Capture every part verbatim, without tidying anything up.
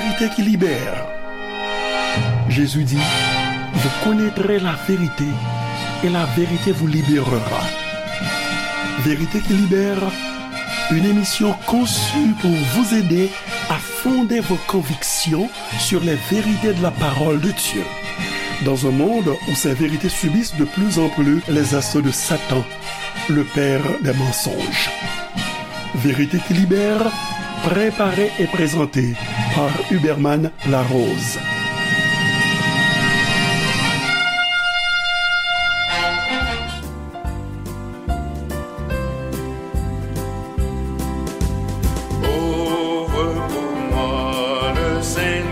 Vérité qui libère. Jésus dit, vous connaîtrez la vérité et la vérité vous libérera. Vérité qui libère, une émission conçue pour vous aider à fonder vos convictions sur les vérités de la parole de Dieu. Dans un monde où ces vérités subissent de plus en plus les assauts de Satan, le père des mensonges. Vérité qui libère, préparée et présentée par Huberman Larose. Ouvre pour moi le Saint-Livre,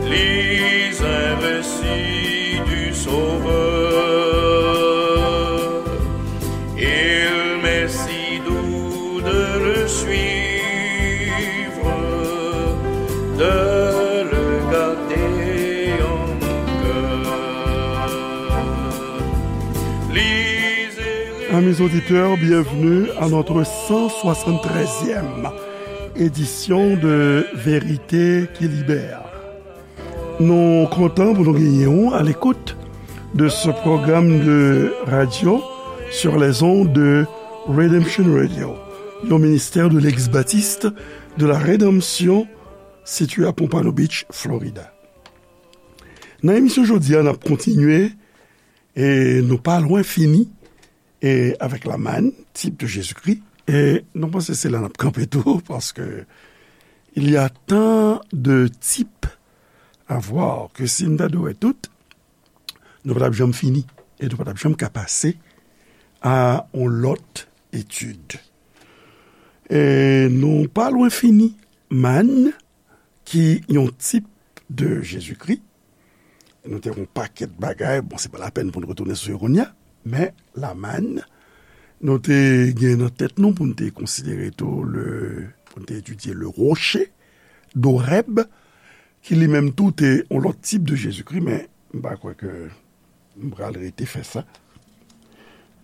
lis un récit du Sauveur. Il m'est si doux de le suivre, de le garder en mon cœur. Lisez. Amis auditeurs, bienvenue à notre cent soixante-treizième édition de Vérité qui libère. Nou kontan pou nou genyen w à l'écoute de ce programme de radio sur les ondes de Redemption Radio, yon ministè de l'ex-baptiste de la Rédemption, sitiye à Pompano Beach, Florida. Nan emisyon jodi a, n ap kontinye, e nou pa lwen fini, e avèk Laman, type de Jésus-Christ. E nou panse se la n ap kanpe tou, paske il y a tant de types à voir que si n ta dwe wè tout, nou pa t ap janm fini, e nou pa t ap janm ka pase à yon lòt etid. E nou pa lwen fini, Laman, ki yon type de Jésus-Christ. Nou te yon pakèt bagay, bon, se pa lapèn pou n retounen sou yo kounye a, men Laman, nou te gen nan tèt nou pou n te konsidere tou le, pou n te etidye le rocher d'Horeb, ki li menm tou te yon lòt type de Jésus-Christ, men m pa kwè ke m pral rete fè sa.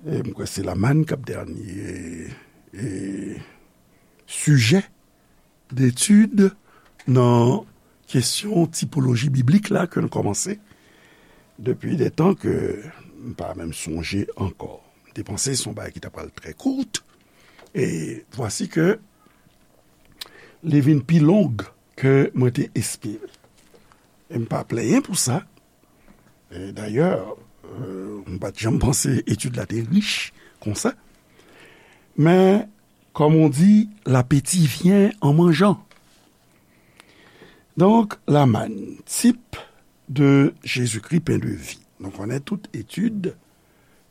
E m kwè se Laman k ap dènye, e, sijè d'étude nan kesyon tipoloji biblik la ke n kòmanse depi de tan ke m pa menm sonje ankò. M te panse se yon bagay ki ta pral trè kout, e vwasi ke li vin pi long ke mwen te espere. E m pa plenyen pou sa. E dayè, euh, m pa t janm panse etid la te rich konsa. Men, comme on dit, l'appétit vient en mangeant. Donk, Laman, type de Jésus-Christ, pain de vie. Nou konnen tout etid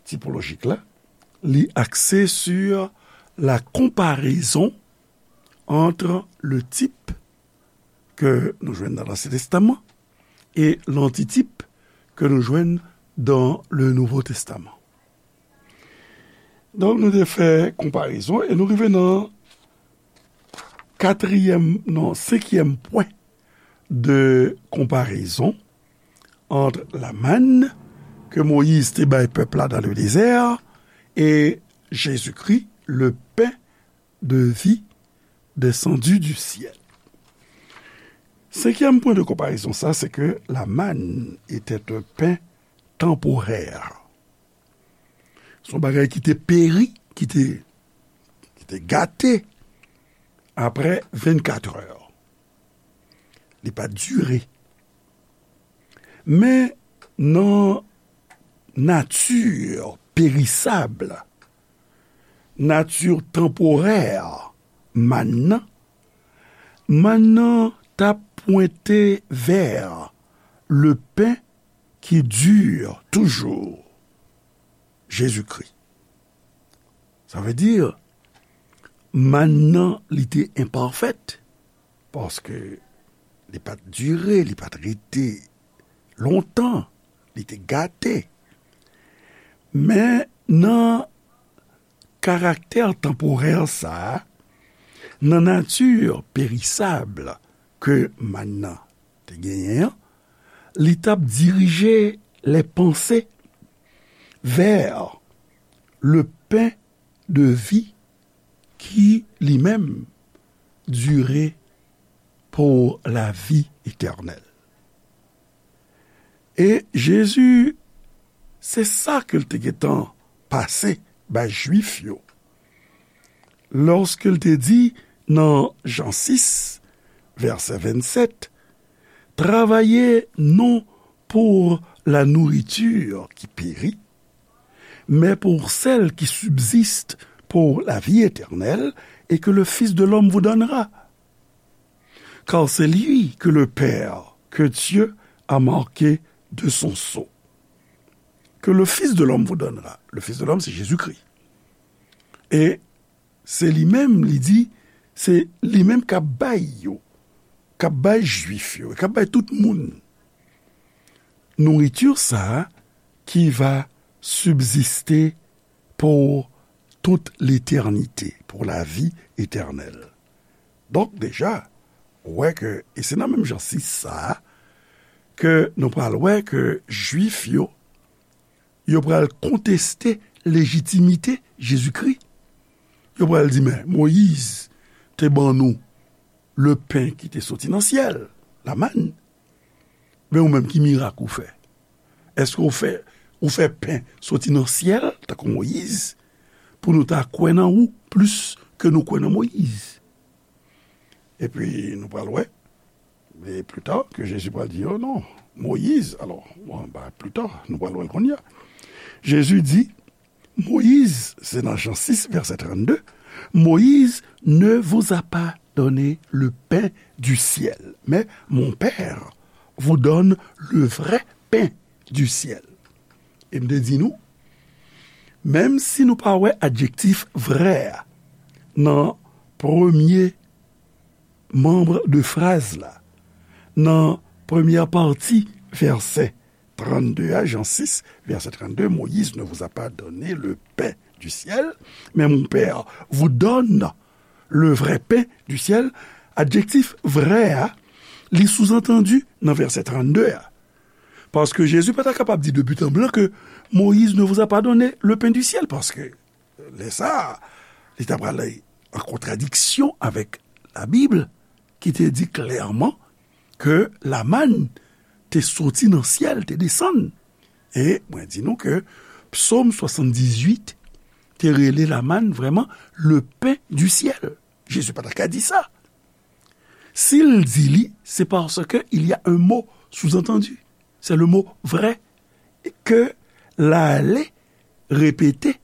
tipolojik la, li axé sur la comparaison entre le type ke nou jwenn nan Lansyen Testaman e lantitype ke nou jwenn dans le Nouveau Testament. Donk, nou te fè konparezon e nou rive nan katriyèm, non, senkyèm pwen de konparezon ant Laman ke Moyiz te bay pèp la dans le désert e Jésus-Christ, le pain de vie descendu du ciel. Senkyèm pwen de konparezon sa, se ke Laman était un pain temporaire. Se yon bagay ki te peri, ki te, ki te gate apre vennkat è. Li pa dire. Men nan nati perisab, nati tanporè mann nan, mann nan t ap pwente vè le pen ki dire toujou, Jezikri. Sa vle di, mann nan, li te enpafèt, paske li pa t dire, li pa t rete lontan, li te gate. Men nan karaktè tanporè sa a, nan nati perisab ke mann nan te genyen an, li t ap dirije lè panse vè le pen de vi ki, li menm, dire pour la vie éternelle. E Jezi, se sa ke l te gentan pase bay Jwif yo. Lòske l te di nan Jan sis, vèsè vennsèt, travaillez non pour la nourriture qui périt, mais pour celle qui subsiste pour la vie éternelle et que le Fils de l'homme vous donnera. Car c'est lui que le Père, que Dieu a marqué de son sceau. Que le Fils de l'homme vous donnera. Le Fils de l'homme, c'est Jésus-Christ. E se li menm, li di, se li menm k ap bay yo, k ap bay Jwif yo, k ap bay tout moun nouriti sa a qui va subsister pour toute l'éternité, pour la vie éternelle. Donk, deja, ou wè ke, e se nan menm Jan sis sa a, ke nou pral wè ke Jwif yo, yo pral konteste lejitimite Jezikri. Yo pral di, men, Moyiz te ban nou le pen ki te soti nan syèl, la manne. Men ou menm, ki mirak ou fè? Èske ou fè, ou fè pen soti nan syèl, tankou Moyiz, pou nou ta kwè nan ou plis ke nou kwè nan Moyiz? Epi nou pral wè, e pli ta, ke Jezi pral di yo, non, Moyiz, alò, bon, ba, pli ta, nou pral wè l kounye a. Jezi di, Moïse, c'est dans Jean six, verset trente-deux, Moïse ne vous a pas donné le pain du ciel, mais mon Père vous donne le vrai pain du ciel. E m te di nou, menm si nou pa wè adjektif vrè a nan premye manm de fraz la, nan premyè pati vèsè trannde a, Jan sis, vèsè trannde, Moïse ne vous a pas donné le pain du ciel, mais mon Père vous donne le vrai pain du ciel. Adjektif vrè a, li souzantandi nan vèsè trannde a. Paske Jezi pa ta kapab di de but en blanc ke Moïse ne vous a pas donné le pain du ciel, paske lè sa a, li ta pral an kontradiksyon avèk Labib, ki te di klèman ke lamann te soti nan syèl, te desann. E mwen di nou ke Psaume soixante-dix-huit te rele lamann vrèman le pain du ciel. Jezi pa ta ka di sa. Si l di li, c'est parce que il y a un mot sous-entendu. C'est le mot vrai ke l ale repete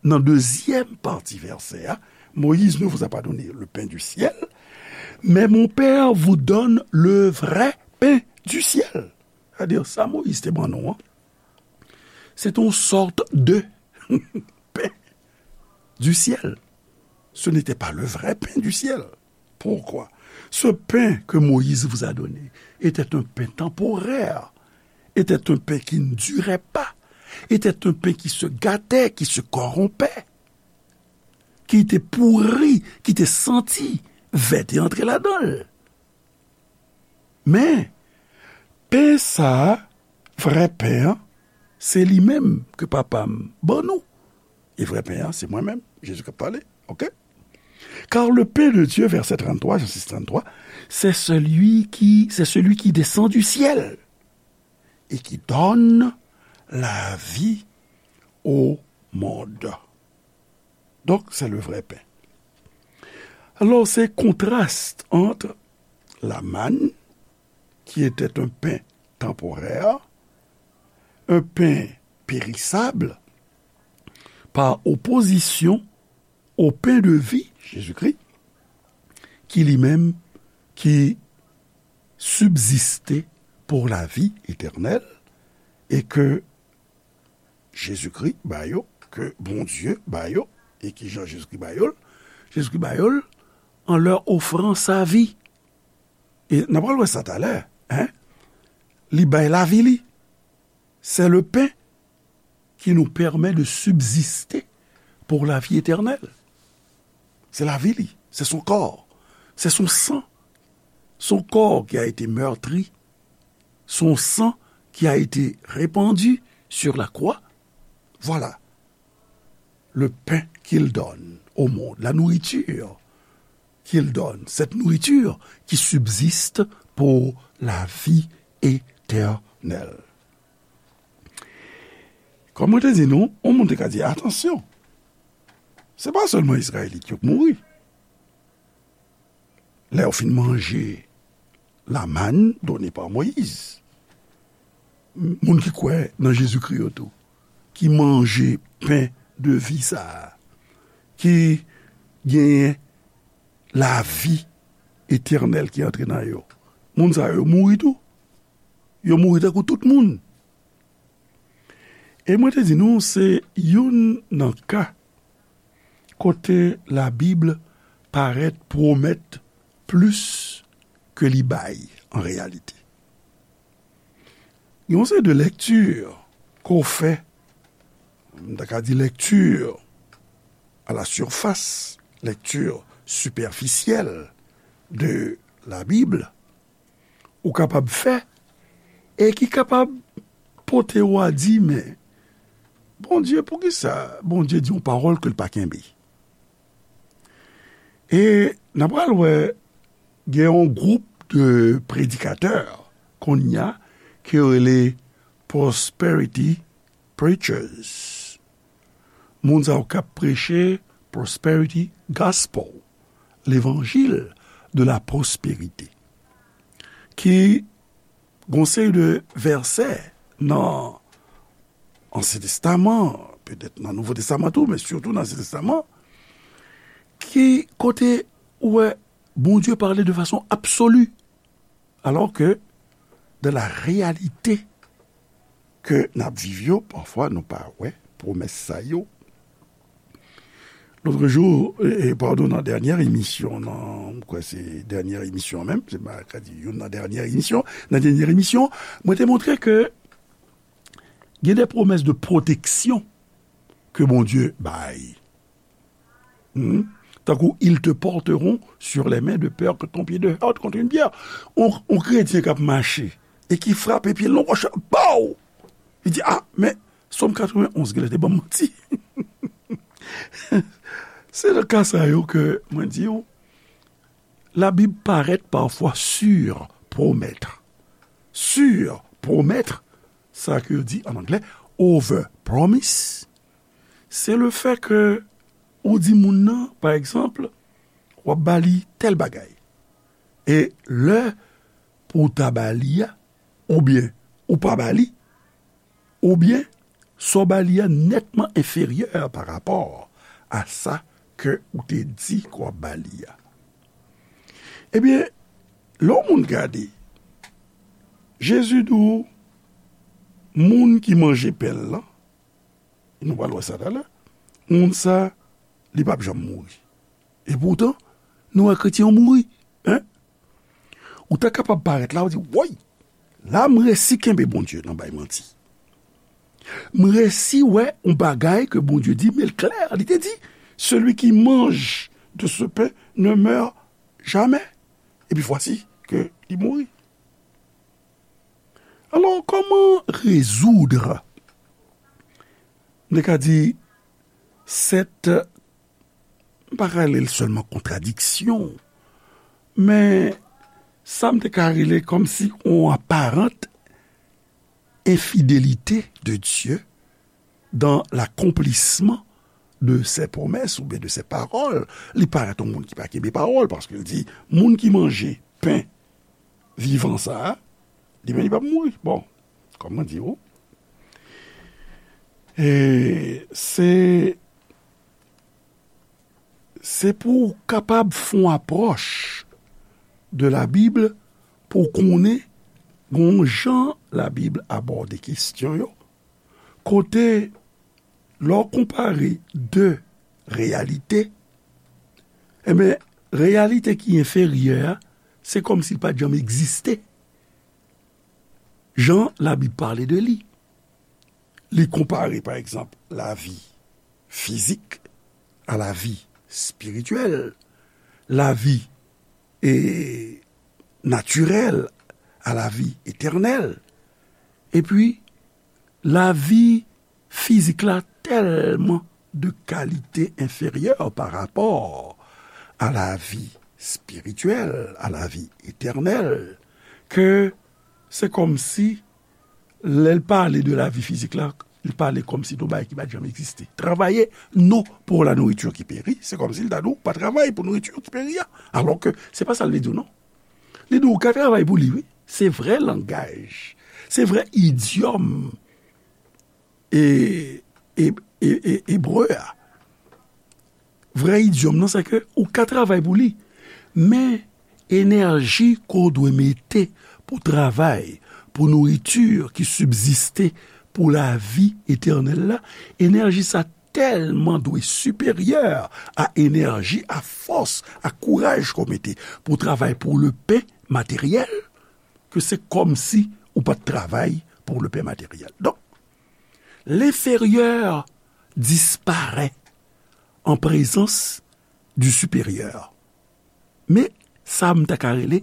nan dezyèm pati vèsè a, Moïse ne vous a pas donné le pain du ciel, mais mon Père vous donne le vrai pain du ciel. Sètadi, sa Moïse te ban nou an, se te yon sòt de pain du ciel. Ce n'était pas le vrai pain du ciel. Pourquoi? Ce pain que Moïse vous a donné était un pain temporaire, était un pain qui ne durait pas, était un pain qui se gâtait, qui se corrompait, ki te pouri, ki te santi, vè te antre ladan l. Men, pen sa a, vrè pen an, se li menm ke Papa m ban nou. E vrè pen an, se mwen menm, Jezi k ap pale, oke? Car le pain de Dieu, verset trente-trois, Jean six trente-trois, c'est celui qui, c'est celui qui descend du ciel et qui donne la vie au monde. Donc, c'est le vrai pain. Alors, ces contrastes entre la manne, qui était un pain temporaire, un pain périssable, par opposition au pain de vie, Jésus-Christ, qui lui-même, qui subsistait pour la vie éternelle, et que Jezikri ba yo, ke Bondye ba yo, e ki jan Jezikri ba yo l? Jezikri ba yo l en leur offrant sa vie. E n ap pral wè sa talè, en? Li bay lavi li. C'est le pain qui nous permet de subsister pour la vie éternelle. C'est la vie li, c'est son corps, c'est son sang. Son corps qui a été meurtri, son sang qui a été répandu sur la croix. Voilà le pain qu'il donne au monde, la nourriture qu'il donne, cette nourriture qui subsiste pour la vie éternelle. Kòm mwen te di nou, yon moun te ka di, "Atansyon, se pa sèlman Izrayelit yo k mouri." Lè yo fin manje la manne donnée par Moïse, moun ki kwè nan Jezikri yo tou, ki manje pen de vi sa a, ki genyen lavi etènèl ki antre nan yo, moun sa yo mouri tou. Yo mouri tankou tout moun. E mwen te di nou, se youn nan ka kote Labib parèt pwomèt plis ke li bay an reyalite. Gen yon seri de lèkti ke w fè, m ta ka di lèkti à la surface, lèkti sipèfisyèl de Labib, ou kapab fè, e ki kapab pote w a di, "Men, Bondye, poukisa Bondye di yon pawòl ke l pa kenbe?" E n a pral wè, gen yon gwoup de predikatè kounye a ke yo rele prosperity preachers. Moun sa yo k ap preche prosperity gospel, levanjil de la pwospèrite, ki gon seri de vèsè nan Ansyen Testaman, petèt nan Nouvo Testaman tou, men sitou nan Ansyen Testaman, ki kote ou wè Bondye pale de fason absoli, alò ke dans la réalité ke n ap viv yo, pafwa nou pa wè pwomès sa yo. Lòt jou, e, e, padon, nan dènyè emisyon, nan, m kwè se dènyè emisyon menm, se pa ka di youn nan dènyè emisyon, nan dènyè emisyon, mwen te montre ke gen de pwomès de pwoteksyon ke Bondye bay. Hmm? Tankou, ils te porteront sur les mains de peur que ton pied ne heurte contre une pierre. On, on kretyen k ap mache e ki frape pye l nan wòch, baw! Li di, "Ah, men Sòm katrevenn onz genlè te ban m manti." Se nan ka sa yo ke mwen di w, Labib parèt pafwa surpromettre. Surpromettre, sa ke yo di an anglè, over promise, se le fè ke ou di moun nan, pa egzanp, w ap ba li tèl bagay. E lè pou w ta ba li a, oubyen ou pa ba li, oubyen sa w ba li a nètman enferyè pa rapò a sa ke ou te di ke w ap ba li a. Ebyen, lè yon moun gade, Jezi di w, moun ki manje pen l lan, nou pral wè sa talè, moun sa, li p ap janm mouri. Epoutan, nou wè kretyen yo mouri, en? Ou ta kapab parèt la, ou di, "Woy, la m resi kenbe Bondye nan bay manti. M resi wè yon bagay ke Bondye di, men l klè, li te di, celui qui mange de ce pain ne meurt jamais." Epi vwasi ke li mouri. Alò, kòman rezoud, m te ka di, sèt, m pa ka rele l sèlman kontradiksyon, men sa m te ka rele kòmsi yon aparant infidélité de Dieu dans l'accomplissement de ses promesses oubyen de ses paroles. Li parèt yon moun ki pa kenbe pawòl, paske l di, moun ki manje pen vivan sa a, li menm li p ap mouri. Bon, kòm mwen di w, e se, se pou w kapab fè yon apwòch de Labib pou w konnen gon jan Labib abòde kesyon yo, kote lè w konpare de reyalite, enben, reyalite ki enferyè a, se kòmsi l pa t janm egziste. Jan Labib pale de li. Li konpare, pa egzanp, lavi fizik a lavi espirityèl, lavi, e, natirèl a lavi etènèl. Epi, lavi fizik la tèlman de kalite enferyè pa rapò a lavi spirityèl, à la vie éternelle, ke se kòmsi, lè l pale de lavi fizik la, li pale kòmsi de yon bagay ki pa t janm egziste. Travaillez, non, pour la nourriture qui périt, se kòmsi l ta di w pa travay pou nouriti ki peri a. Alò ke se pa sa l vle di w, non. Li di w ka travay pou li, wi. Se vrè langaj, se vrè idyòm e, e, e, e, ebre a. Vrè idyòm nan, se ke ou ka travay pou li, men enèji ke w dwe mete pou travay, pou nouriti ki sibziste, pou lavi etènèl la, enèji sa tèlman dwe siperyè a enèji, a fòs, a kouraj ke w mete pou travay pou le pen materyèl, ke se kòmsi ou pa t travay pou le pen materyèl. Donk, l'inférieur disparaît en présence du supérieur. Men sa m ta ka rele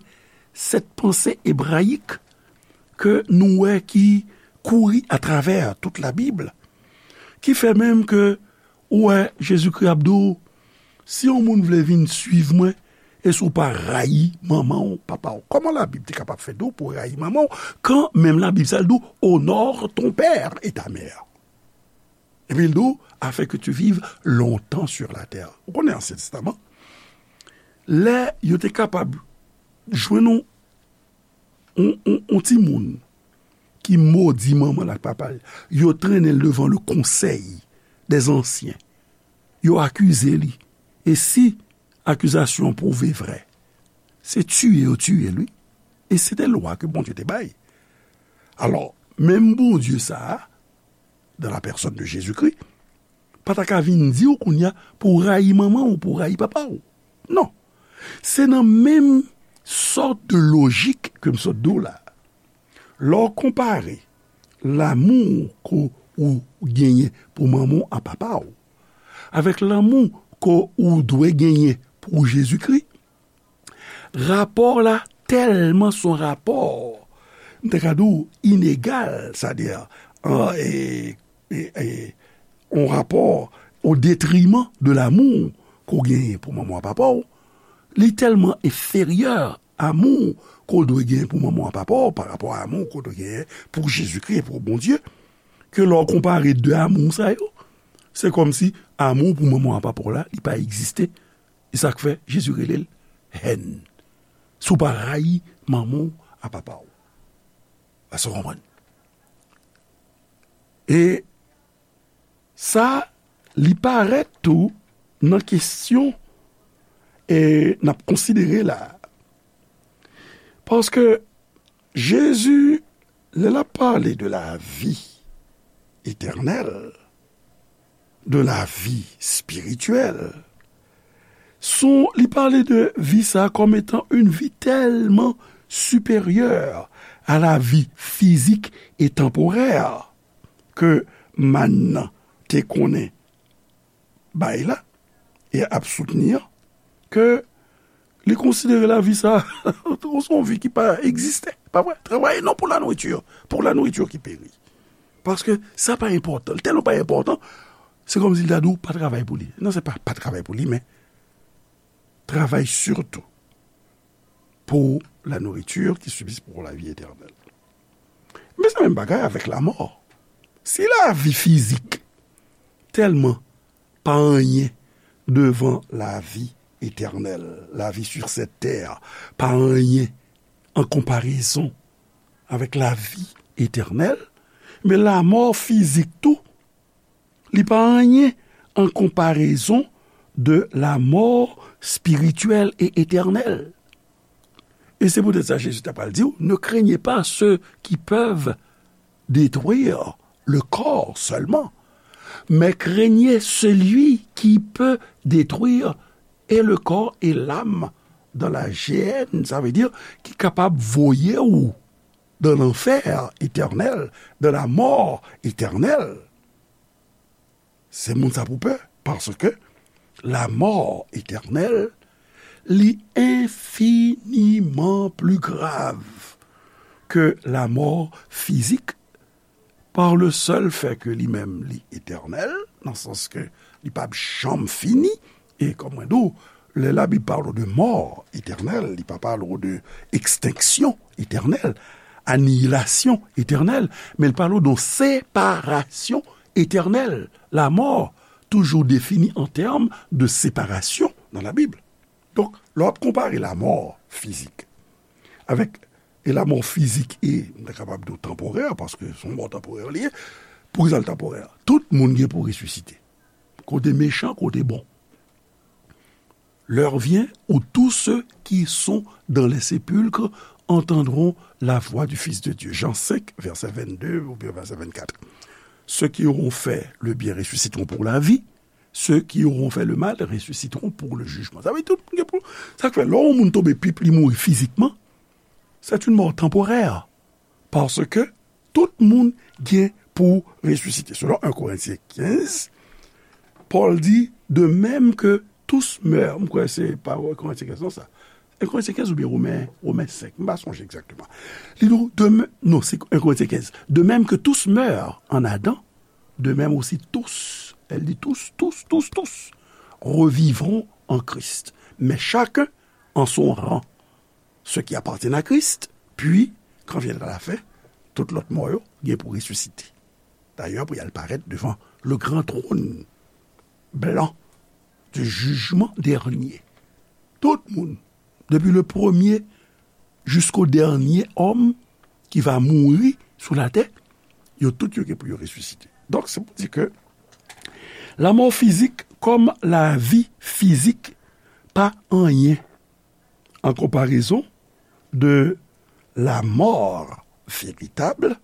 sèt panse ebrayik ke nou wè ki kouri atravè tout Labib, ki fè menm ke ou wè Jezikri ap di w, si yon moun vle vin suiv mwen, e si w pa rayi manman w, papa w. Kòman Labib te kapab fè di w pou w rayi manman w, kan menm Labib sa l di w, honore ton père et ta mère? Epi l di w, afin que tu vives longtemps sur la terre. Ou konnen Ansyen Testaman, lè yo te kapab jwenn yon, yon, yon, yon timoun ki modi manman l ak papa l, yo trennen l devan le conseil des anciens. Yo akize li. E si akizasyon an pwouve vrè, se tiye yo tiye l, wi. E se te lwa ke Bondye te bay. Alò, menm Bondye sa a, dans la personne de Jésus-Christ, pa ta ka vin di w kounye a pou w rayi manman w, pou w rayi papa w. Non. Se nan menm sòt de lojik ke m sot di w la. Lè w konpare lanmou ke ou genyen pou manman w a papa w avèk lanmou ke ou dwe genyen pou Jezikri, rapò la tèlman se yon rapò, m te ka di w, inegal, sètadi, an, e, e, e, yon rapò o detriman de lanmou ke w genyen pou manman w ak papa w, li tèlman enferyè amou ke w dwe genyen pou manman w ak papa w pa rapò a amou ke w dwe genyen pou Jezikri e pou Bondye, ke lè w konpare de amou sa yo, se kòmsi amou pou manman w ak papa w la, li pa egziste. E sa k fè Jezi rele l hèn. Si w pa rayi manman w ak papa w. Èske w konprann? E sa, li parèt tou nan kesyon, e, n ap konsidere la. Paske Jezi, lè l ap pale de la vie éternelle, de la vie spirituelle, son, li pale de vi sa kòm etan une vie tellement supérieure à la vie physique et temporaire ke mann nan te konnen bay la e ap soutni an, ke li konsidere lavi sa se yon vi ki pa egziste. Pa vre? Travaillez non pour la nourriture, pour la nourriture qui périt. Paske sa pa enpòtan. Tèlman pa enpòtan, se kòmsi l ta di w pa travay pou li. Non, se pa pa travay pou li, men travay surtout pour la nourriture qui subsiste pour la vie éternelle. Men se menm bagay avèk lamò. Si lavi fizik tèlman pa anyen devan lavi etènèl, lavi sur cette terre, pa anyen an konparezon avèk lavi etènèl, men lamò fizik tou, li pa anyen an konparezon de la mort spirituelle et éternelle. E se poutèt sa Jezi ta pral di w, ne craignez pas ceux qui peuvent détruire le corps seulement, mais craignez celui qui peut détruire et le corps et l'âme dans la géhenne, sa vle di ki kapab voye w dans l'enfer éternel, dans la mort éternelle. Se moun sa pou pè, paske la mò etènèl, li enfiniman pli grav ke la mò fizik, pa le sèl fè ke li menm li etènèl, nan sans ke li p ap janm fini, e kòm mwen di w, Lè Labib pale de mò etènèl, li pa pale de ekstenksyon etènèl, aniyilasyon etènèl, men li pale de separasyon etènèl. Lamò toujou defini an tèm de separasyon nan Labib. Donk, lè w ap konpare lamò fizik avèk, e lamò fizik e, m ta kapab di w tanporè, paske se yon mò tanporè li ye. Poukisa l tanporè? Tout moun gen pou resisite. Kote mechan, kote bon. L'heure vient où tous ceux qui sont dans les sépulcres entendront la voix du Fils de Dieu. Jean cinq, verset vingt-deux ou bien verset vingt-quatre. Ceux qui auront fait le bien ressusciteront pour la vie. Ceux qui auront fait le mal ressusciteront pour le jugement. Sa vle di tout moun gen pou. Sa k fè, lè yon moun tonbe pip, li mouri fizikman, c'est une mort temporaire. Paske tout moun gen pou resisite. Selon un Korentyen kenz, Pòl di, de même que tous meurent. M kwè se pa Korentyen kenz, non, sa. Un Korentyen kenz oubyen Women, Women senk. M pa sonje egzakteman. Li di, de mè-, non, se un Korentyen kenz. De même que tous meurent en Adam, de même aussi tous, elle dit tous, tous, tous, tous, revivront en Christ. Mais chacun en son rang. Ceux qui appartiennent à Christ, puis, quand viendra la fin, tout lòt mò yo gen pou resisite. Dayè, pou y al parèt devan le grand trône blanc du jugement dernier. Tout moun, depi le premye jisko dènye òm ki va mouri sou latè, yo tout yo gen pou yo resisite. Donk, se pou di ke lamò fizik kòm lavi fizik pa anyen an konparezon de la mort véritable,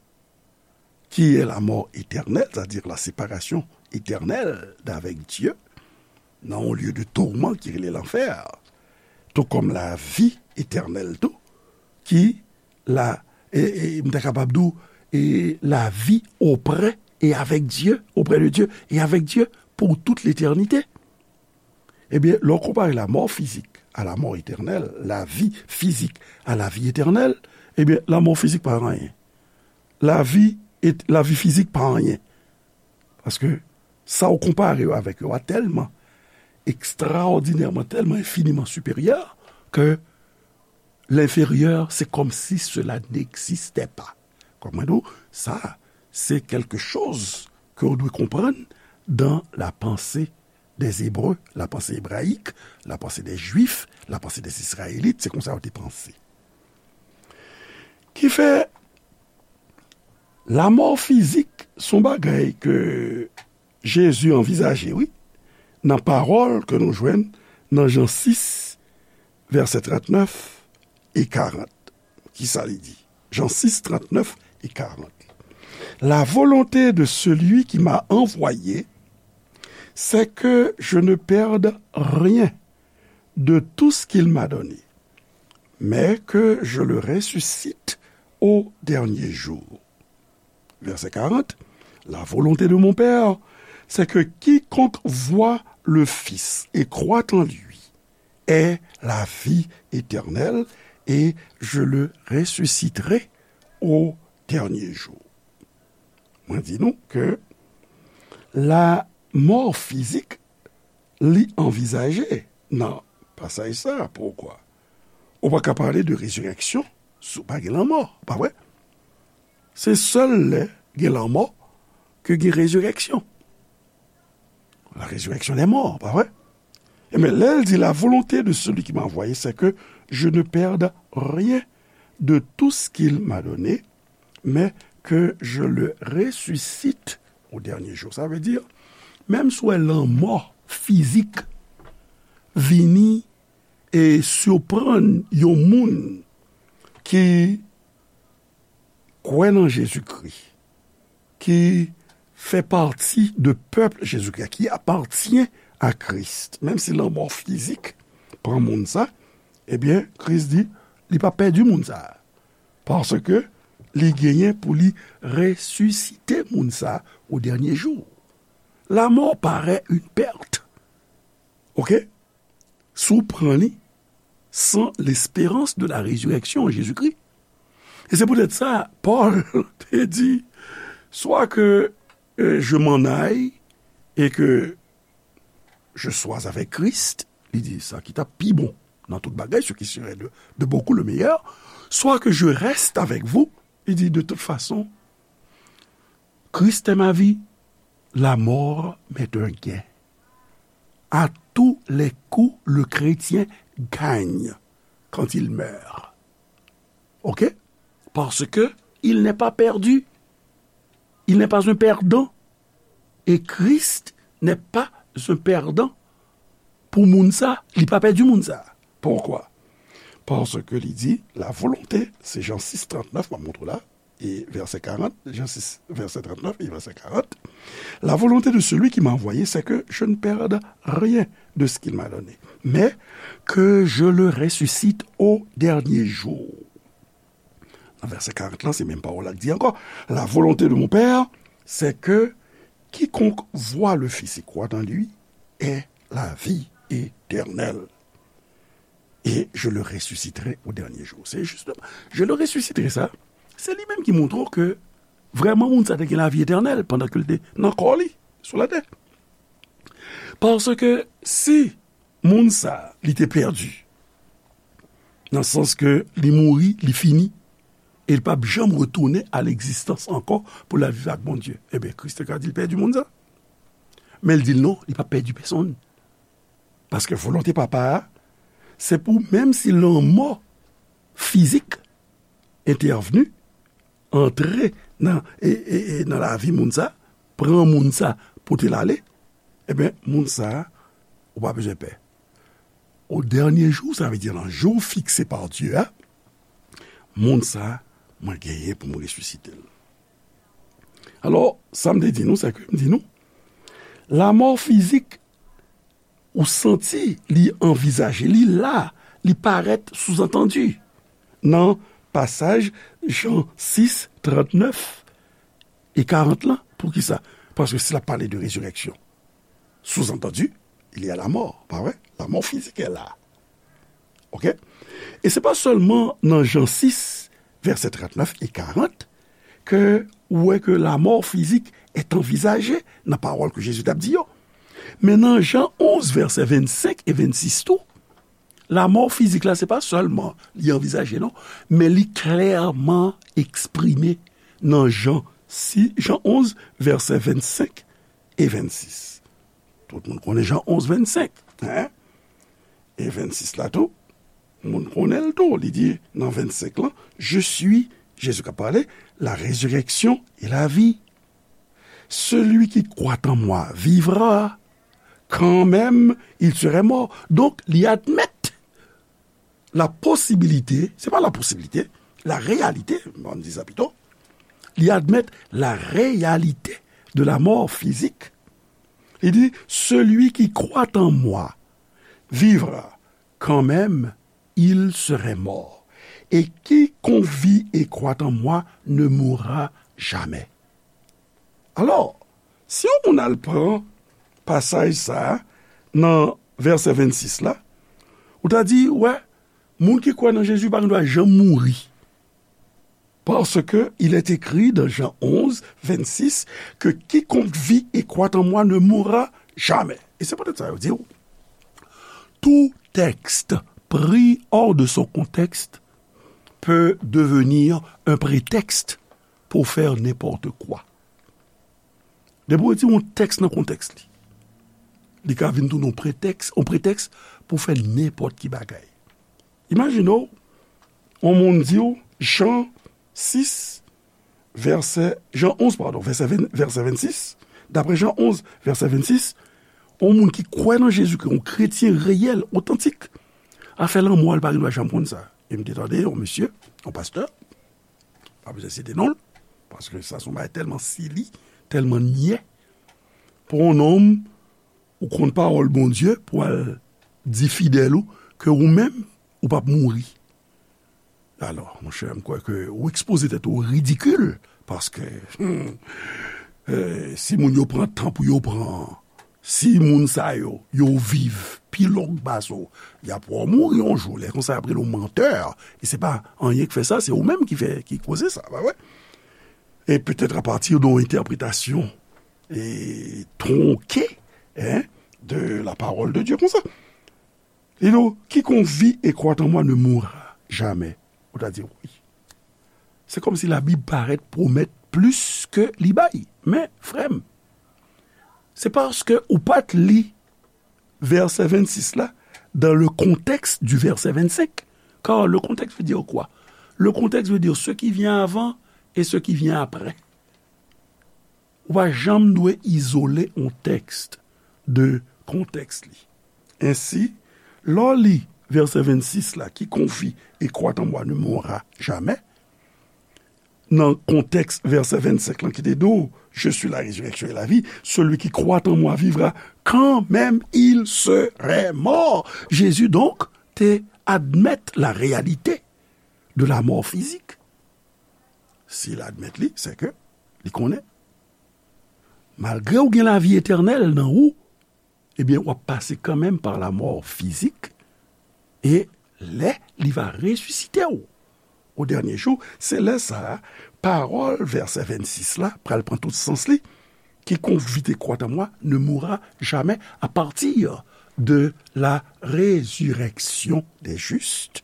qui est la mort éternelle, c'est-à-dire la séparation éternelle d'avec Dieu, dans un lieu de tourment qui est l'enfer, tout comme la vie éternelle, tout, qui la, e, e, m ta kapab di w, e, la vie auprès et avec Dieu, auprès de Dieu et avec Dieu pour toute l'éternité. Ebyen, lè w konpare lamò fizik a lamò etènèl, lavi fizik a lavi etènèl, ebyen, lamò fizik pa anyen. Lavi et, lavi fizik pa anyen. Paske sa w konpare yo avèk yo a tèlman ekstraòdinèman, tèlman enfiniman siperyè ke l'inférieur, c'est comme si cela n'existait pas. Kòm mwen di w, sa, se quelque chose ke w dwe konprann dans la pensée des Hébreux, la pensée hébraïque, la pensée des Juifs, la pensée des Israélites, se konsa yo te panse. Ki fè, lamò fizik se yon bagay ke Jezi anvizaje, wi, nan pawòl ke nou jwenn nan Jan sis, vèsè trannèf e karant. Kisa li di? Jan sis, trannèf e karant. La volonté de celui qui m'a envoyé, c'est que je ne perde rien de tout ce qu'il m'a donné, mais que je le ressuscite au dernier jour. Verset quarante, la volonté de mon Père, c'est que quiconque voit le Fils et croit en lui ait la vie éternelle, et je le ressusciterai au dernier jour. Mwen di nou ke lamò fizik, li anvizaje nan pasaj sa. Poukwa? Ou pa ka pale de rezirèksyon si w pa gen lanmò, pa vre? Se sèl lè gen lanmò ke gen rezirèksyon. La résurrection des morts, pa vre? Ebyen, lè l di, la volonté de celui qui m'a envoyé, c'est que je ne perde rien de tout ce qu'il m'a donné, mais que je le ressuscite au dernier jour. Sa vle di, menm si w wè lanmò fizik vini e siprann yon moun ki kwè nan Jezikri, ki fè pati de pèp Jezikri, qui appartient à Christ, menm si lanmò fizik pran moun sa, ebyen, Kris di, li pa pèdi moun sa, paske li genyen pou li resisite moun sa o dènye jou. La mort paraît une perte. Oke? Si w pran li sans l'espérance de la résurrection en Jésus-Christ. E se poutèt sa, Pòl te di, soit que, euh, je m'en aille et que je sois avec Christ, li di, sa ki t ap pi bon dans toute bagaille, ce qui serait de, de beaucoup le meilleur, soit que je reste avec vous, il dit, de toute façon, Christ est ma vie, la mort m'est un gain. À tous les coups, le chrétien gagne quand il meurt. OK? Parce que il n'est pas perdu. Il n'est pas un perdant. Et Christ n'est pas un perdant pour moun sa, li pa pèdi moun sa. Pourquoi? Parce que li di, la volonté, c'est Jean six trente-neuf, m ap montre la, et verset quarante, Jean six, verset trente-neuf et verset quarante, la volonté de celui qui m'a envoyé, c'est que je ne perde rien de ce qu'il m'a donné, mais que je le ressuscite au dernier jour. Nan vèsè karant lan, se menm pawòl la k di ankò, la volonté de mon Père, c'est que quiconque voit le Fils et croit en lui ait la vie éternelle. Et je le ressusciterai au dernier jour. Se jistèman, je le ressusciterai sa, se li menm ki montre w ke vrèman moun sa te gen lavi etènèl pandan ke l te nan kò li sou latè. Paske si moun sa, li te pèdi, nan sans ke li mouri, li fini, e li p ap janm retounen a legzistans ankò pou l al viv ak Bondye. Ebyen, Kris te ka di l pèdi moun sa. Men l di l non, li p ap pèdi pèsonn. Paske volonte Papa a, se pou menm si lanmò fizik entèvni, antre nan, e, e, e nan lavi moun sa, pran moun sa, pote l ale, ebyen, moun sa, ou pa bezwen pè. Au dernier jour, sa vle di nan jou fikse pa Dye a, moun sa, mwen genyen pou mwen resisite l. Alò, sa m te di nou, se ke m di nou, lamò fizik ou santi li anvizaje, li la, li parèt souzantandi nan pasaj Jan sis, trantnèf e karant lan. Poukisa? Paske si l ap pale de rezirèksyon, souzantandi, il y a la mort, pa vre? Lamò fizik est là. OK? E se pa sèlman nan Jan sis, vèsè trantnèf e karant, ke ou wè ke lamò fizik est envisagée nan pawòl ke Jezi t ap di yo. Men nan Jan onz, vèsè vennsenk e vennsis tou, lamò fizik la, se pa sèlman li anvizaje, non, men li klèman eksprime nan Jan sis, Jan onz, vèsè vennsenk e vennsis. Tout moun konnen Jan onz, vennsenk, hein? E vennsis la tou, moun konnen l tou. Li di nan vennsenk lan, je suis, Jezi k ap pale, la résurrection et la vie. Celui qui croit en moi vivra, quand même il serait mort. Donk, li admèt la posibilite, se pa la posibilite, la réalité, m di sa pito, li admèt la réalité de la mort physique. Li di, celui qui croit en moi vivra, quand même il serait mort. Et quiconque vit et croit en moi ne mourra jamais. Alò, si yon moun al pran pasaj sa a nan vèsè vennsis la, ou ta di, wè, moun ki kwè nan Jezi pa gen dwa janm mouri. Parce que il est écrit dans Jean onze, vingt-six, que quiconque vit et croit en moi ne mourra jamais. E se poutèt sa yo di w, tout texte pris hors de son contexte peut devenir un prétexte pour faire n'importe quoi. Depi w retire yon tèks nan kontèks li, li ka vin tounen yon pretèks, yon pretèks pou fè nenpòt ki bagay. Imajine w, yon moun di w, Jan sis, vèsè, Jan onz, padon, vèsè ven, vèsè vennsis, daprè Jan onz, vèsè vennsis, yon moun ki kwè nan Jezi, ki yon kretyen reyèl, otantik, afè lanmò a, li pa gen dwa janm konn sa. E m te tande yon mesye, yon pastè, pa bezwen site non l, paske sa se yon bagay tèlman sili, tèlman nyè, pou yon nonm ou konn pawòl Bondye, pou al di fidèl ou ke ou menm, ou p ap mouri. Alò, monchè, m kwè ke ou ekspoze tèt ou o ridikil, paske, hmm, eh, si moun yo pran tan pou yo pran, si moun sa yo, yo viv pi long pase w, y ap wè w mouri yon jou. Lè konsa, y ap rele w mantè. E se pa anyen k fè sa, se ou menm ki fè, ki koze sa, pa vre? Et peut-être à partir d'une interprétation, eh, tronquée, hein, de la parole de Dieu, konsa. Li di w, quiconque vit et croit en moi ne mourra jamais. Ou ta di, wi. Se kòmsi Labib parèt pwomèt plis ke li bay. Men, frè m, se paske ou pa t li vèsè vennsis la dans le contexte du verset vingt-cinq. Car le contexte veut dire quoi? Le contexte veut dire ce qui vient avant et ce qui vient après. Ou pa janm dwe izole yon tèks de kontèks li. Ensi, lè w li vèsè vennsis la, quiconque vit et croit en moi ne mourra jamais, nan kontèks vèsè vennsenk lan ki te di w, Je suis la résurrection et la vie, celui qui croit en moi vivra quand même il serait mort. Jezi, donk, te admèt la réalité de la mort physique. Si l admèt li, se ke li konnen, malgre w gen lavi etènèl nan ou, ebyen, w ap pase kanmenm pa la mò fizik, e lè li va resisite w o dènye jou, se lè sa a, pawòl vèsè vennsis la pral pran tout sans li, Quiconque vit et croit en moi ne mourra jamais, à partir de la résurrection des justes,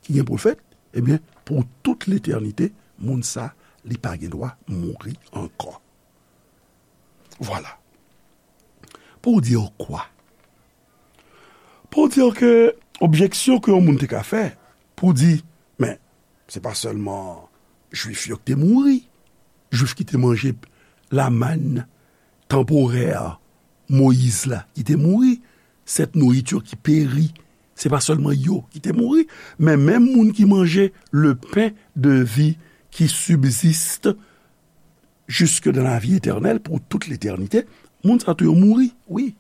ki gen pou l fèt, ebyen, pou tout letènite, moun sa, li pa gen dwa mouri ankò. Vwala. Pou w di w kwa? Pou w di w ke objeksyon ke yon moun te ka fè, pou di, men, se pa sèlman Jwif yo ki te mouri, Jwif ki te manje lamann tanporè Moyiz la ki te mouri, cette nourriture qui périt, se pa sèlman yo ki te mouri, men menm moun ki manje le pain de vie qui subsiste jusque dans la vie éternelle pour toute l'éternité, moun sa tou yo mouri, wi.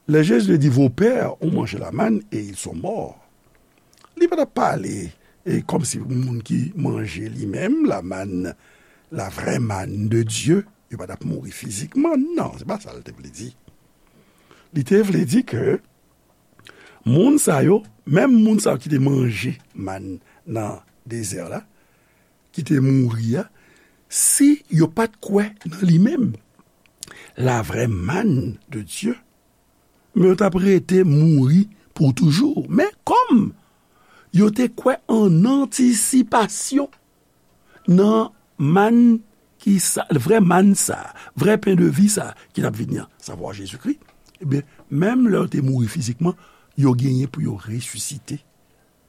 Lè Jezi te di, vos pères ont mangé la manne et ils sont morts, li pa t ap pale e, kòmsi moun ki manje li menm lamann, la vraie manne de Dieu, yo pa t ap mouri fizikman. Non, se pa sa l te vle di. Li te vle di ke moun sa yo, menm moun sa yo ki te manje mann nan dezè la, ki te mouri a, si yo pa t kwè nan li menm, la vraie manne de Dieu, men yo t ap rete mouri pou toujou. Men kòm yo te kwè an antisipasyon nan mann ki sa, vrè mann sa, vrè pen de vi sa ki t ap vini an, savwa Jezikri, ebyen, menm lè yo te mouri fizikman, yo genyen pou yo resisite,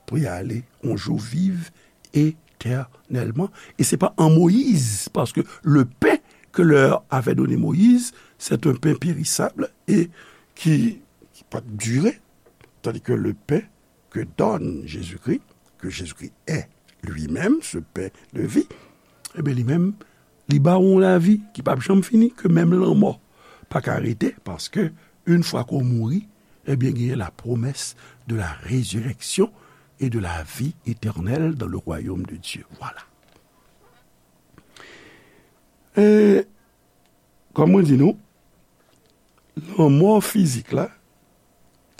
pou y ale yon jou viv etènèlman. E se pa an Moyiz, paske le pain que leur avait donné Moïse, c'est un pain périssable et qui, qui pa t dire, tandis que le pain que donne Jésus-Christ, que Jésus-Christ est lui-même ce pain de vie, ebyen, li menm, li ba w yon lavi ki p ap janm fini, ke menm lanmò pa ka rete, paske, yon fwa ke w mouri, ebyen, genyen la promesse de la résurrection et de la vie éternelle dans le royaume de Dieu. Vwala. E, kòm mwen di nou, lanmò fizik la,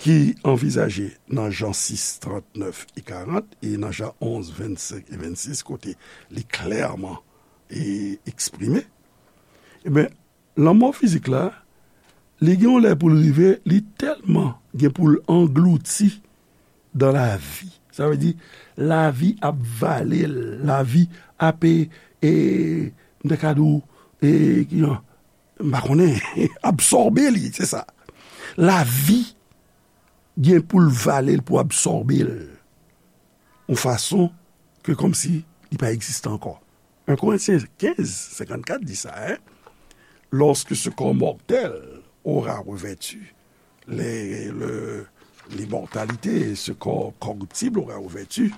ki anvizaje nan Jan sis, trannèf e karant, e nan Jan onz, vennsenk e vennsis, kote li klèman e eksprime, ebyen, lanmò fizik la, li gen yon lè pou l rive, li tèlman gen pou l anglouti dans la vie. Sa vle di, lavi ap vale l, lavi ap, e, e, m te ka di w, e, ki jan, m pa konnen, absòbe li, se sa. Lavi gen pou l vale l, pou absòbe l, yon fason ke kòmsi li pa egziste ankò. En Korentyen kenz, senkannkat di sa, hein? Lorsque ce corps mortel aura revêtu les, le, l'immortalité, ce corps corruptible aura revêtu,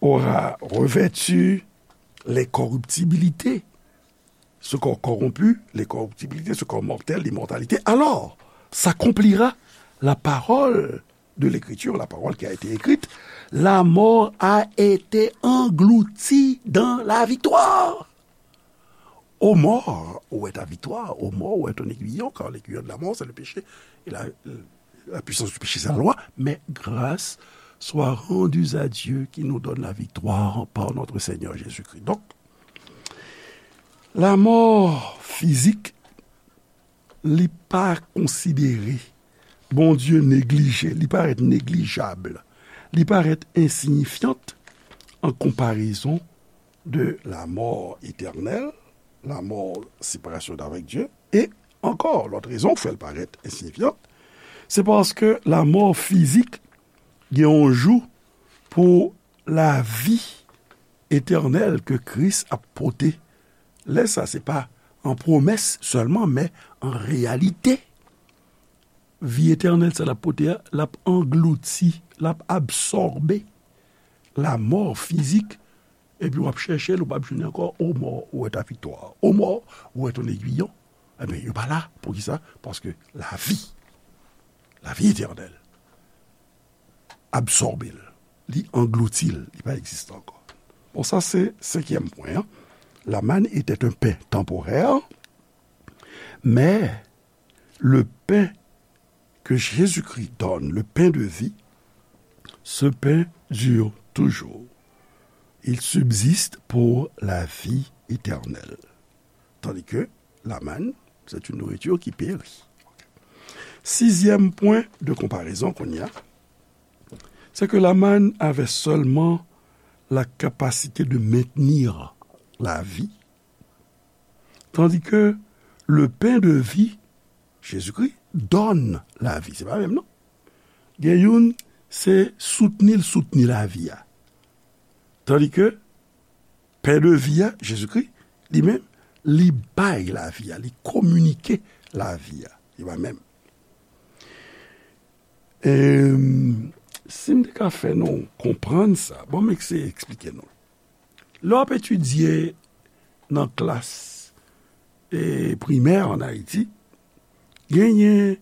aura revêtu l'incorruptibilité, ce corps corrompu, l'incorruptibilité, ce corps mortel, l'immortalité, alors s'accomplira la parole de l'Écriture, la parole qui a été écrite, la mort a été engloutie dans la victoire. Ô mort, où est ta victoire? Ô mort, où est ton aiguillon? Car l'aiguillon de la mort, c'est le péché. Et la, la puissance du péché, c'est la loi. Mais grâce soit rendue à Dieu qui nous donne la victoire par notre Seigneur Jésus-Christ. Donc, la mort physique, li pa konsidere Bondye neglije, li parèt neglijab, li parèt ensiyifyan an konparezon de la mort éternelle, la mort, séparation d'avec Dieu, e ankò, lòt rezon k fè l parèt ensiyifyan, se paske la mort fizik gen yon jou pou lavi etènèl ke Kris ap pote. Lè sa, se pa an pwomès sèlman, men an reyalite. Vi etènèl sa l ap pote a, l ap anglouti, l ap absòbe lamò fizik, epi w ap chèche l, ou p ap jwenn li ankò. O mò, ou wè ta viktwa? O mò, ou wè ton egwiyon? Ebyen, yo pa la. Poukisa? Paske lavi, lavi etènèl, absòbe l, li anglouti l, li pa egziste ankò. Bon, sa se senkyèm pwen an. La manne était un pain temporaire, mais le pain que Jésus-Christ donne, le pain de vie, ce pain dure toujours. Il subsiste pour la vie éternelle. Tandis que la manne, c'est une nourriture qui périt. Sixième point de comparaison qu'on y a, c'est que la manne avait seulement la capacité de maintenir la vie, tandis que le pain de vie, Jésus-Christ, donne la vie. Se pa menm non. Gen youn, se soutni l soutni lavi a. Tandis que pen de vi a, Jezikri, li menm, li bay lavi a, li kominike lavi a. Li pa menm. E, si m te ka fè nou konprann sa, bon, m eseye eksplike nou. Lè w ap etidye nan klas, e, primè ann Ayiti, genyen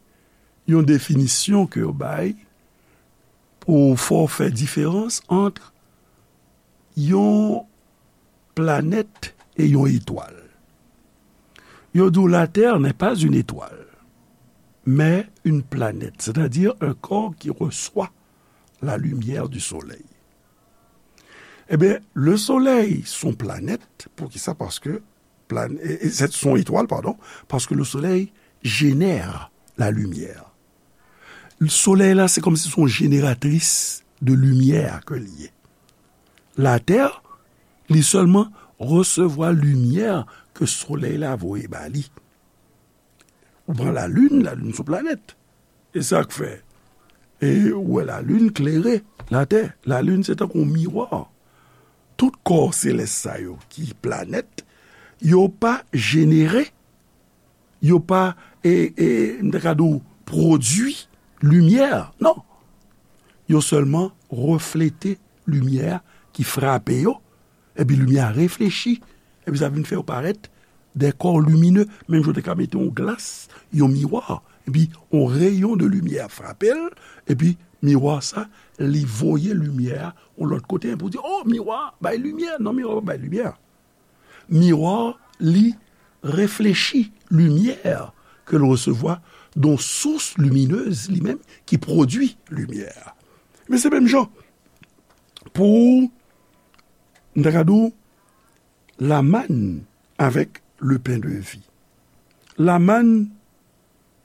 yon definisyon ke yo bay pou fè w fè diferans ant yon planèt e yon etwal. Yo di w, la Terre n'est pas une étoile, mais une planète, c'est-à-dire un corps qui reçoit la lumière du soleil. Ebyen, le soleil, se yon planèt. Poukisa? Paske plan-, e, e, se yon etwal, padon, paske le soleil génère la lumière. Solèy la, se kòmsi se yon jeneratris de limyè ke li ye. Latè, li sèlman resevwa limyè ke solèy la voye ba li. Ou pran lalin, lalin se yon planèt. E sa k fè, e ou wè lalin klere latè. Lalin se tankou yon miwa. Tout kò selès sa yo ki planèt, yo pa jenere, yo pa, e, e, m ta ka di w, pwodui limyè. Non. Yo sèlman reflete limyè ki frape yo, epi limyè a reflechi, epi sa vin fè yo parèt de kò limine, menm jan w te ka mete yon glas, yon miwa, epi yon reyon de limyè frape l, epi miwa sa, li voye limyè a yon lòt kote, pou di, "O, miwa bay limyè." Non, miwa pa bay limyè. Miwa, li reflechi limyè ke l resevwa de yon sous liminez, li menm, ki pwodui limyè. Men se menm jan pou, m ta ka di w, la manne avec le pain de vie. La manne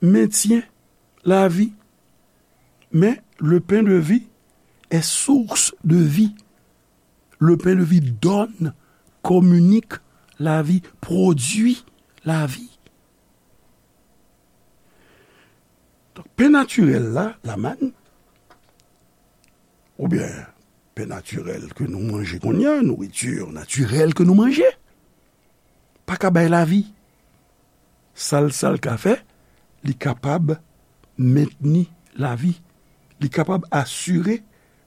maintient la vie, mais le pain de vie est source de vie. Le pain de vie donne, communique la vie, produit la vie. Donk, pen natirèl la, la manne, oubyen pen natirèl ke nou manje kounye a, nouriti natirèl ke nou manje, pa ka bay lavi. Sa l, sa l ka fè, li kapab mentni lavi. Li kapab asire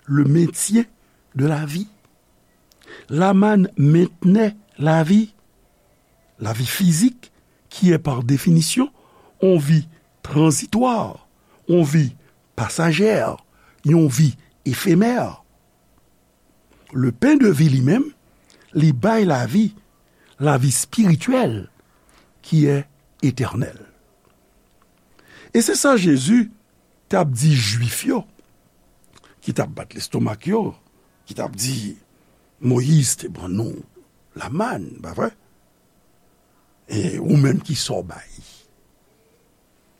le maintien de la vie. La manne maintenait la vie, la vie physique, qui est par définition une vie transitoire, une vie passagère, une vie éphémère. Le pain de vie li menm, li bay lavi, lavi espirityèl ki è etènèl. E se sa Jezi t ap di Jwif yo, ki t ap bat lestomak yo, ki t ap di, "Moyiz te ban nou la manne, pa vre? E ou menm, kisa w bay?"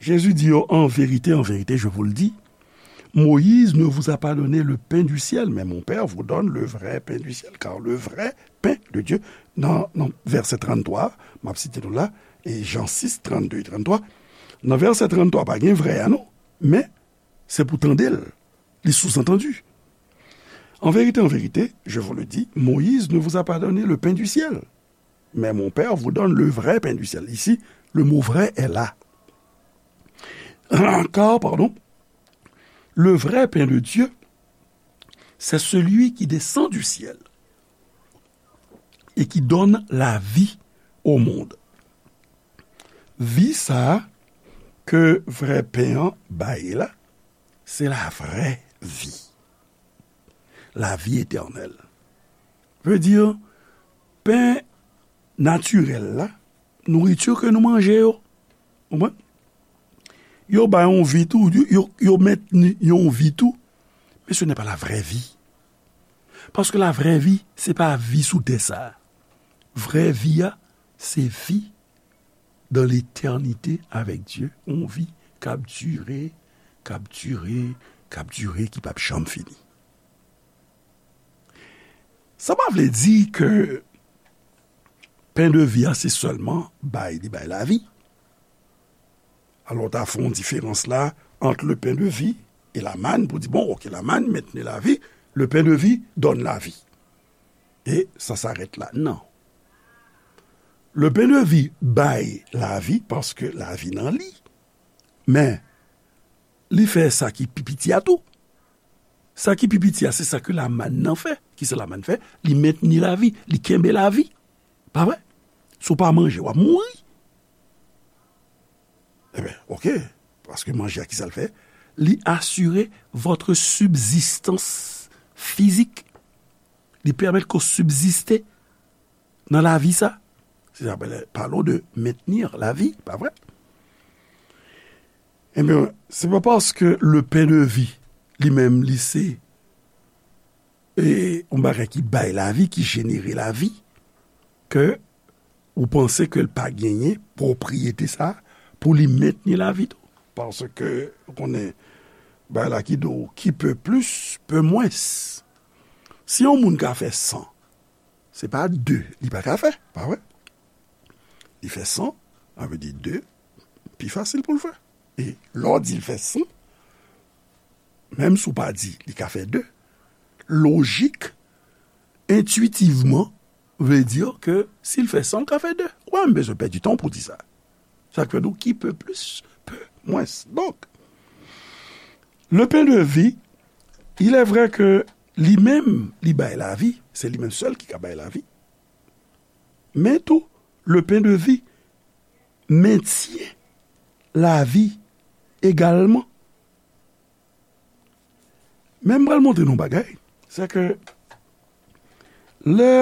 Jésus dit yo, en vérité, en vérité, je vous le dis, Moïse ne vous a pas donné le pain du ciel, mais mon Père vous donne le vrai pain du ciel, car le vrai pain de Dieu, nan, nan vèsè tranntrwa, m ap site nou la, e Jan sis, trannde e tranntrwa, nan vèsè tranntrwa, pa gen vrè a non, men se pou tande l, li sous-entendu. En vérité, en vérité, je vous le dis, Moïse ne vous a pas donné le pain du ciel, mais mon Père vous donne le vrai pain du ciel. Ici, le mot vrai est là. Car, pardon, le vrai pain de Dieu, c'est celui qui descend du ciel et qui donne la vie au monde. Vi sa a ke vrè pen an bay la, se la vrè vi. La vi etènèl. Vle di, pen natirèl la, nouriti ke nou manje yo. Konprann? Yo bay yon vi tou, yo, yo, yo mentni yon vi tou, men se nè pa la vrè vi. Paske la vrè vi, se pa vi sou tè sa a. Vrè vi a, se vi dans l'éternité avec Dieu, yon vi k ap dire, k ap dire, k ap dire, ki p ap janm fini. Sa pa vle di ke pen de vi a se sèlman bay, li bay lavi. Alò, w ta fè yon diferans la ant le pain de vie et la manne pou di, bon, ok, la manne maintenait la vie, le pain de vie donne la vie. Et ça s'arrête là. Non. Le pain de vie bay lavi paske lavi nan li. Men, li fè sa ki pi piti a tou. Sa ki pi piti a, se sa ke lamann nan fè. Kisa lamann fè? Li mentni lavi, li kenbe lavi. Pa vre? Si w pa manje, w ap mouri. Ebyen, ok. Paske manje a, kisa l fè? Li asire votre subsistance physique. Li pèmèt ke w sibziste nan lavi sa. Se sa, ben, parlons de maintenir la vie, pa vre? Ebyen, se pa paske le pain de vie, li menm, li se, e, yon bagay ki bay lavi, ki jenere lavi, ke ou panse ke l pa genyen pwopriyete sa pou li mentni lavi tou. Paske, ou konnen, bagay la ki di w, qui peut plus, peut moins. Si yon moun ka fè san, se pa de li pa ka fè, pa vre? Li fè san, sa vle di de, pi fasil pou l fè. E lè w di l fè san, menm si w pa di li ka fè de, lojik, entwitivman, vle di ke si l fè san, l ka fè de. Ou pa menm bezwen pèdi tan pou di sa. Sa k fè nou, qui peut plus, peut moins. Donk, le pain de vie, il est vrai que li menm, li bay lavi, se li menm sèl ki ka bay lavi. Men tou, le pain de vie mentyen lavi egalman. Men m pral montre nou yon bagay, se ke lè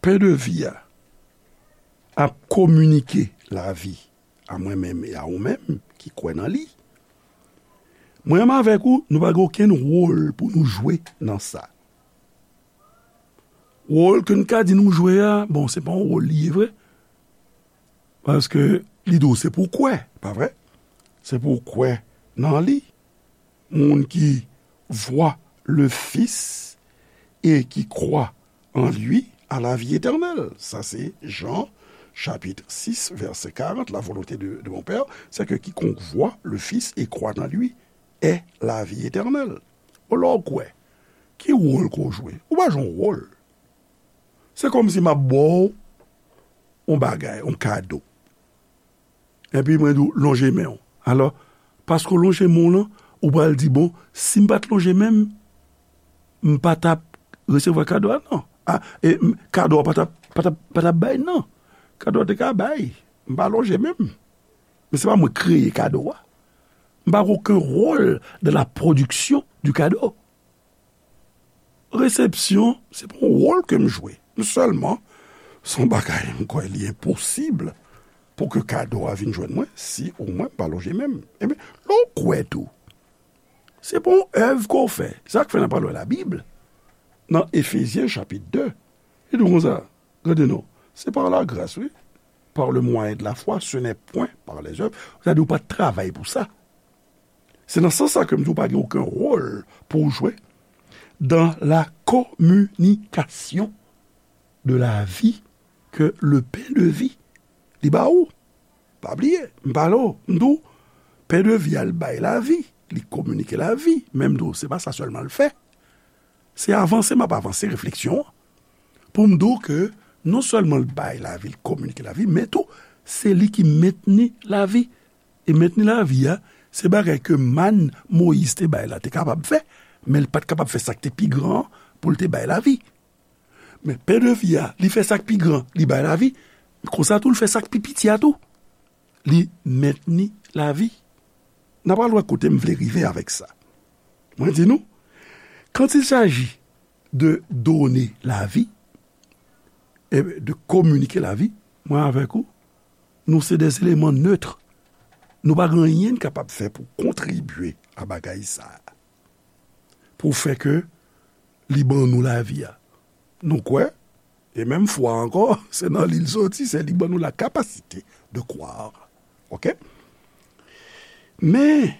pen de vi a ap kominike lavi a mwen menm e a ou menm ki kwè nan li, mwen menm avèk ou, nou pa gen okenn wòl pou nou jwe nan sa. Wòl ke n ka di nou jwe a, bon, se pa yon wòl li ye vre. Paske li di w se pou w kwè, pa vre? Se pou w kwè nan li. Moun ki vwa le Fils et qui croit en lui a la vie éternelle. Sa se Jan, chapit sis, vèsè karant, la volonté de, de mon Père, c'est que quiconque voit le Fils et croit en lui ait la vie éternelle. Ou lè w kwè, ki wòl ke w jwe? Ou pa jwe yon wòl. Se kòmsi m ap ba w yon bagay, yon kado. Epi mwen di w, lonje men w. Alò, paske w lonje men w lan, ou pral di, bon, si m pa t lonje men m, m pa t ap resevwa kado a, non. A, e, m, kado a pa t ap, pa t ap, pa t ap bay, non. Kado a te ka bay. M pa lonje men m. Men se pa mwen kreye kado a. M pa gen okenn wòl dans la production du cadeau. Resepsyon, se pa yon wòl ke m jwe. Sèlman, se yon bagay m kwè li enposib pou ke kado a vin jwenn mwen si ou mwen m pa lonje men m. Ebyen, lè w kwè tou, se pa yon èv ke w fè. Sa k fè n ap pale w Labib, nan Efezyen chapit de, li di w konsa, gade non, c'est par la grâce, wi. par le moyen de la foi, ce n'est point par les œuvres. Sa di ou pa t travay pou sa. Se nan sans sa ke m di w pa gen okenn wòl pou w jwe dans la communication de la vie que le pain de vie li ba ou. Pa bliye, m pale w, m di w, pen de vi a l bay lavi, li kominike lavi, men m di w, se pa sa sèlman l fè. Se avanse m ap avanse refleksyon an. Pou m di w ke non sèlman l bay lavi, l kominike lavi, men tou, se li ki mentni lavi. E mentni lavi a, se bagay ke màn Moyiz te bay la te kapab fè, men l pa t kapab fè sa k te pi gran an pou l te bay lavi. Men pen de vi a, li fè sa k pi gran, li bay lavi. Konsa tou, l fè sa k pi piti a tou. Li mentni lavi. N a pral wè kote m vle rive avèk sa. Mwen di nou, quand il s'agit de donner la vie, e de communiquer la vie, mwen avèk ou, nou se des éléments neutres. Nou pa gen anyen n kapab fè pou kontribye a bagay sa a. Pou fè ke li ban nou lavi a. Nou kwè, e menm fwa ankò, se nan li l soti, se li ban nou la capacité de croire. Oke? Men,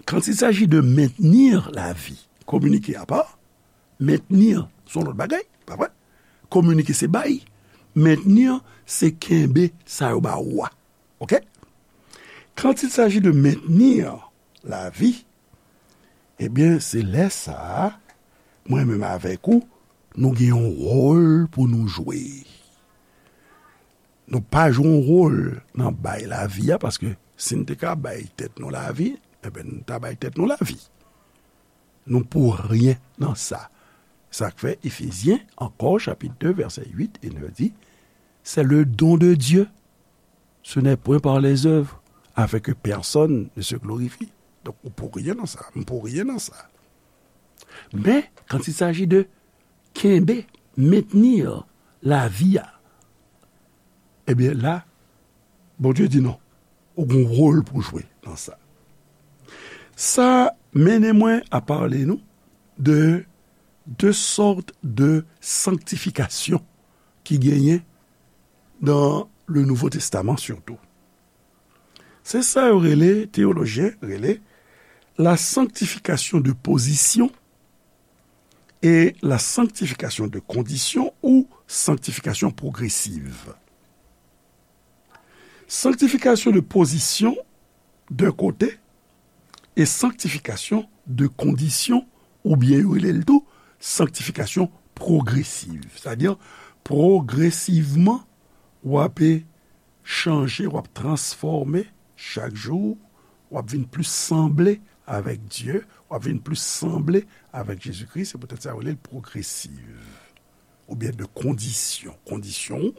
quand il s'agit de maintenir la vie, kominike apa, mentni se yon lòt bagay, pa vre? Kominike se bay, mentni se kenbe sa yo ba ou a. Oke? Quand il s'agit de maintenir la vie, ebyen, se lè sa a, mwen menm avèk ou, nou gen yon wòl pou nou jwe. Nou pa jwe yon wòl nan bay lavi a, paske si n te ka bay tèt nou lavi, ebyen, n ta bay tèt nou lavi. Nou pou ryen nan sa. Sa k fè Efezyen, ankò, chapit de, vèsè uit e nèf di, c'est le don de Dieu. Ce n'est point par les œuvres, afin que personne ne se glorifie. Donk, ou pou ryen nan sa, m pou ryen nan sa. Men, quand il s'agit de kenbe, mentenir lavi a, ebyen la, Bondye di non. Ou gen yon wòl pou jwe nan sa. Sa mennen mwen a pale nou de de sòt de sanktifikasyon ki genyen dans le Nouveau Testament surtout. Se sa yo rele, teyolojyen rele, la sanctification de position et la sanctification de condition ou sanctification progressive. Sanctification de position d'un côté et sanctification de condition, oubyen yo rele l tou sanctification progressive. Sa di, pwogresivman, w ap chanje, w ap transfòme chak jou, w ap vin plis sanble avèk Dye, w ap vin plis sanble avèk Jezikri. Se poutèt sa yo rele l pwogresiv. Oubyen de kondisyon. Kondisyon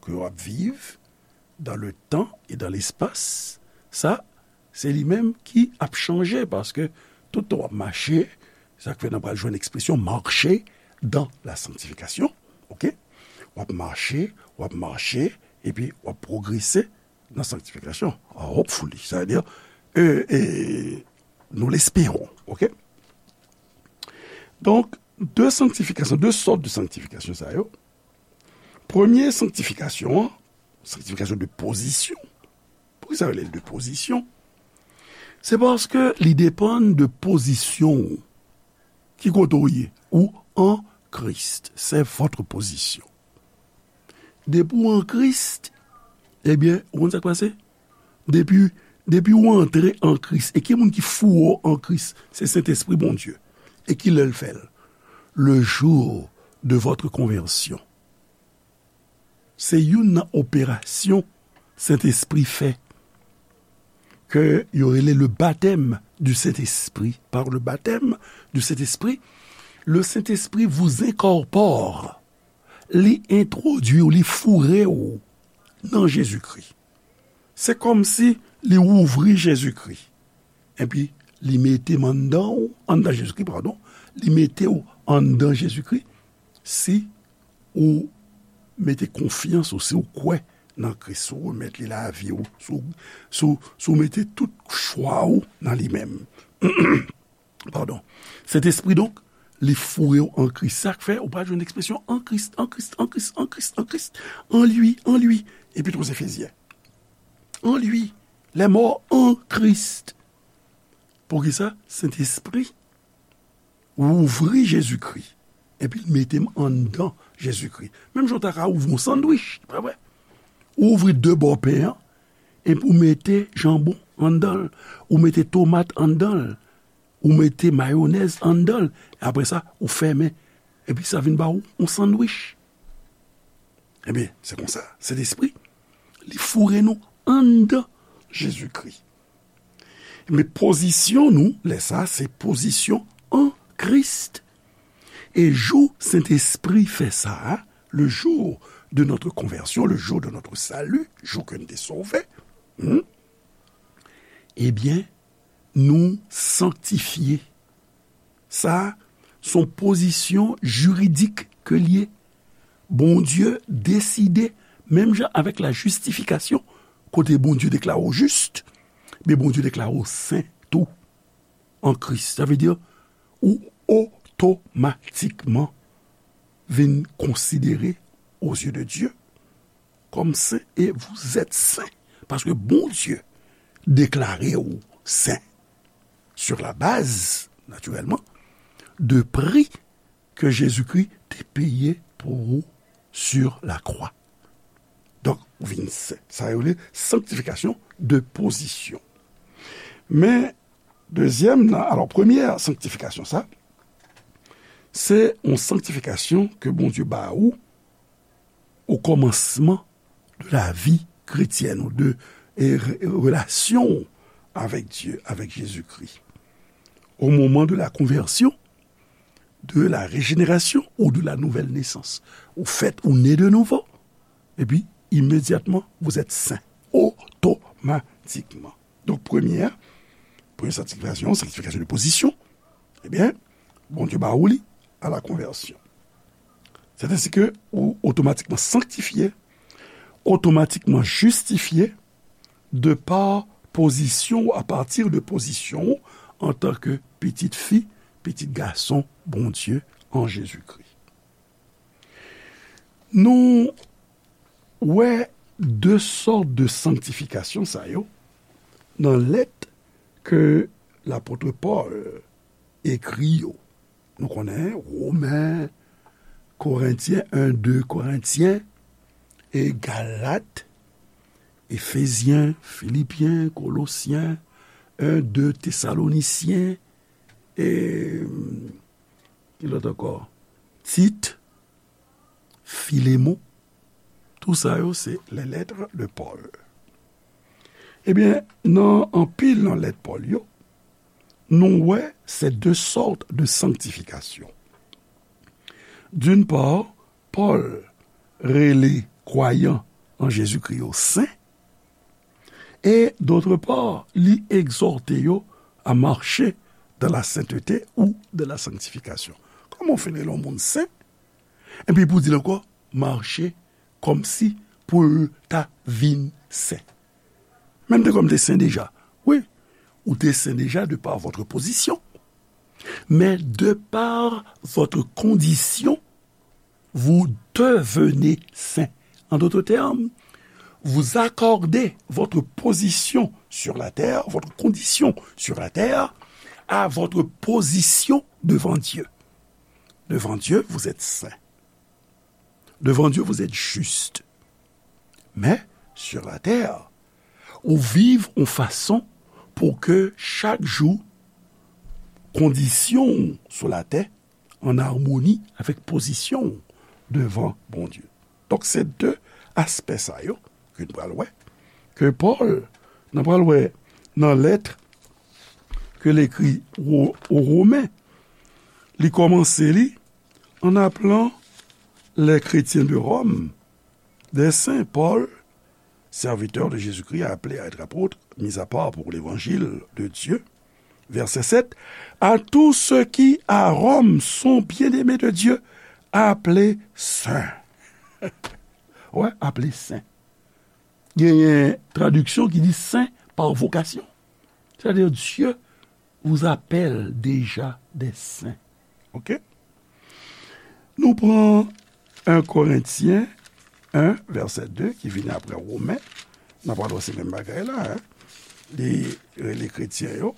ke w ap viv dans le temps et dans l'espace, sa, se li menm ki ap chanje, paske tout tan w ap mache, sa k fè n ap pral jwenn ekspresyon marcher dans la sanctification, oke? W ap mache, w ap mache, epi w ap pwogrese nan sanktifikasyon. Ah, hopefully, sa vle di, e, e, nous l'espérons, oke? Donk, de sanktifikasyon, de sòt de sanktifikasyon sa yo. Premye sanktifikasyon an, sanktifikasyon de pozisyon. Poukisa yo rele l de pozisyon? Se paske li depann de pozisyon ou. Ki kote w ye? Ou an Kris. C'est votre position. Depi w an Kris, ebyen, ou konn sa k pase? Depi, depi w antre an Kris, e ki moun ki foure w an Kris? Se Sentespri Bondye. E ki lè l fè l? Le jour de votre conversion. Se youn nan operasyon Sentespri fè, ke yo rele le baptême du Saint-Esprit. Par le baptême du Saint-Esprit, le Saint-Esprit vous incorpore. Li entwodui w, li foure w nan Jezikri. Se kòmsi li ouvri Jezikri. Epi, li mete m anndan w, anndan Jezikri, padon. Li mete w anndan Jezikri. Si ou mete konfyans ou, si ou kwè nan Kris, si ou remèt li lavi w, si w, si w, si w mete tout chwa w nan li menm. Padon. Sentespri, donk, li foure w an Kris. Sa k fè, ou pa jwenn ekspresyon an Kris, an Kris, an Kris, an Kris, an Kris, an li, an li. Epit aux Éphésiens. En lui, les morts en Christ. Poukisa? Sentespri ouvri Jezikri, epi l mete m anndan Jezikri. Menm jan w ta ka ouvri yon sandwich, pa vre? Ou ouvri de bò pen an, epi ou mete janbon anndan l, ou mete tomat anndan l, ou mete mayonèz anndan l, apre sa, ou fèmen, epi sa vin ba ou yon sandwich. Ebyen, se konsa, Sentespri, li foure nou anndan Jezikri. Men pozisyon nou, lè sa, se pozisyon an Kris. E jou Sentespri fè sa, le jour de notre conversion, le jour de notre salut, jou ke n te sove, hmm, ebyen, nou sanktifye. Sa, se yon pozisyon jiridik ke l ye. Bondye deside, menm jan avèk la jistifikasyon, kote Bondye deklare w jis, men Bondye deklare w sen tou an Kris. Sa vle di, ou otomatikman vin konsidere aux yeux de Dieu comme saint et vous êtes saint. Paske Bondye deklare w sen sur la base, naturellement, de prix que Jésus-Christ te peye pou ou sur la croix. Donk, ou vin sen. Sa yo rele sanktifikasyon de pozisyon. Men, dezyèm nan, alò, premyè sanktifikasyon sa, se yon sanktifikasyon ke Bondye ba ou o kòmansman de la vi kretyèn ou de, e, re-, relasyon ou avèk Dye, avèk Jezikri. Au moment de la conversion, de la régénération ou de la nouvelle naissance. Ou fèt, ou né de nouveau. Epi, imedyatman, vous êtes saint. Otomatikman. Donk, premye a, premye sanktifikasyon, sanktifikasyon de pozisyon, ebyen, Bondye ba ou li à la conversion. C'est ainsi que ou otomatikman sanktifye, otomatikman jistifye, de pa pozisyon ou, apati de pozisyon ou antanke pitit fi, pitit gason Bondye an Jezikri. Nou wè de sòt de sanktifikasyon sa yo nan lèt ke lapot Pòl ekri yo. Nou konnen Women, Korentyen, en, de Korentyen, e Galat, Efezyen, Filipyen, Kolosyen, en, de Tesalonisyen, e, ki lòt ankò? Tit, Filemon, tou sa yo se les lettres de Paul. Ebyen, nan anpil nan lèt Pòl yo, nou wè se de sòt de sanktifikasyon. D'une part, Pòl rele kwayan an Jezikri yo sen, e, d'autre part, li egzòte yo à marcher dans la sainteté ou dans la sanctification. Kòman w fin rele yon moun sen, epi pou di l ankò, mache kòmsi pou l ta vin sen. Men m te kwè m te sen deja. Wi, ou te sen deja de par votre position. Mais de par votre condition, vous devenez saint. En d'autres termes, vous accordez votre position sur la terre, votre condition sur la terre, à votre position devant Dieu. Devant Dieu, vous êtes saint. Devant Dieu, vous êtes juste. Men, sur la terre, ou viv yon fason pou ke chak jou, kondisyon w sou latè an amoni avèk pozisyon w devan Bondye. Donk, se de aspè sa yo ke n pral wè, ke Pòl, n pral wè nan lèt ke l ekri o, o Women, li kòmanse li en appelant les chrétiens de Rome des saints. Paul, serviteur de Jésus-Christ, appelé à être apôtre, mis à part pour l'évangile de Dieu. Verset sept, à tous ceux qui à Rome sont bien-aimés de Dieu, appelés saints. Ouais, appelés saints. Genyen tradiksyon ki di saint par vocation. C'est-à-dire, Dieu vous appelle déjà des saints. Ok? Nou pran en Korentyen, en, vèsè de, ki vini apre Women, n ap wè se menm bagay la, en. Li rele kretyen yo,